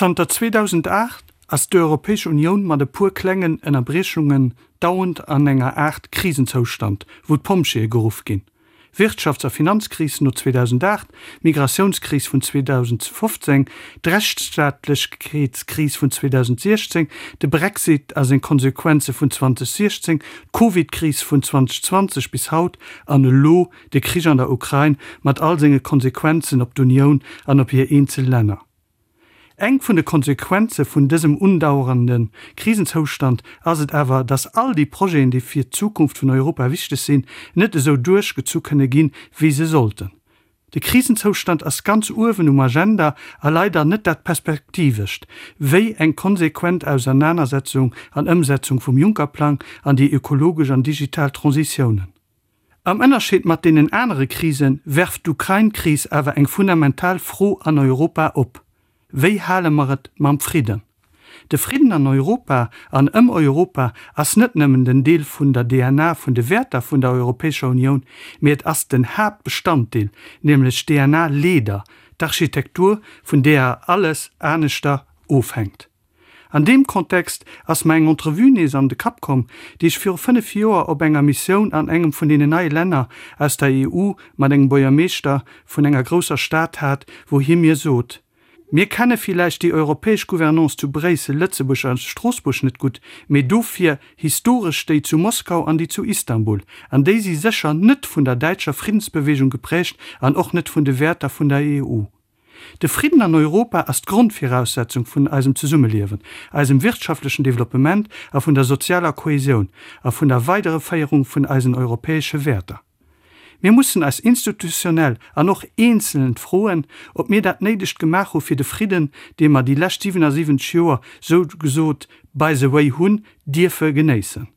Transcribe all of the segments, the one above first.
Zanter 2008 ass d'Europäesch Unioun mat e puer klengen Ënnerbriechungen dauernd an enger Aart Krisenzoustand, wou d'Pompjeeë geruff ginn. Wirtschafts a Finanzkris no 2008, d'Migratiounskris vun 2015, d'Rechtsstaatlechkeetskris vun 2016, de Brexit a seng Konsequenze vun 2016, d'Covidkris vun 2020 bis haut an elo de Krich an der Ukrain mat all senge Konsequenzen op d'Unioun an op hir eenzel Länner. Eng vun de Konsequenze vun dësem undauerende Krisenzoustand ass et awer, dass all déi Projeten, déi fir d'Zukunft vun Europa wichteg sinn, net esou duerchgezu kënne ginn, wéi se sollten. De Krisenzoustand ass ganz uewen um Agenda a leider net dat Perspektivescht, wéi eng konsequent Ausernanersetzung an Ëmsetzung vum Juncker-Plang an déi ökologesch an digital Transitiounen. Am Ënnerscheed mat deenen anere Krise werft d'Ukrain-Kris awer eng fundamental Fro an Europa op, Wéi hale mer et mam Fridden? De Fridden an Europa an ëm Europa ass net nëmmen den Deel vun der DNA vun de Wäerter vun der Europäescher Unioun, mee et ass den Haaptbestanddeel, nämlech d'DNA-Leeder, d'Architektur, vun deeër alles aneschter ofhänkt. An deem Kontext ass mer eng Entrevue nees an de Kapp komm, déi ech viru 5 Joer op enger Missioun an engem vun deenen neie Länner aus der EU mat engem Buergermeeschter vun enger grousser Stad hat, wou hie mir sot, Mir kenne villäicht déi europäesch Gouvernance zu Bréissel, Lëtzebuerg a Stroossbuerg net gutt, mee dofir historesch déi zu Moskau an déi zu Istanbul. An déi si sécher net vun der däitscher Friddensbewegung geprägt an och net vun de Wäerter vun der EU. De Fridden an Europa ass d'Grondviraussetzung vun eisem Zesummeliewen, eisem wirtschaftlechen Developpement a vun der sozialer Kohäsioun a vun der Weidereféierung vun eisen europäesche Wäerter. Mir mussen eis institutionell an och eenzeln froen, ob mir dat Néidegt gemaach hu fir de Fridden, dee mer déi lescht 77 Joer sou gesot by the way hunn dierfe genéissen.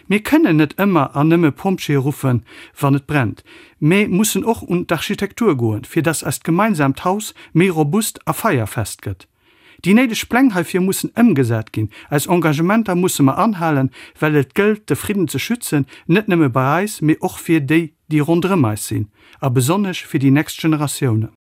Mir kënnen net ëmmer an nëmme Pompjeeë ruffen, wann et brennt, mä mussen och un d'Architektur goen, fir dass eist gemeinsaamt Haus méi robust a feierfest gëtt. Déi néideg Pläng heifir mussen ëmgesat ginn. Eis Engagementer musse mer anhalen, well et gëllt, de Fridden ze schützen, net nëmme bei eis, mee och fir déi, déi ronderëm eis sinn, a besonnesch fir déi nächst Generatiounen.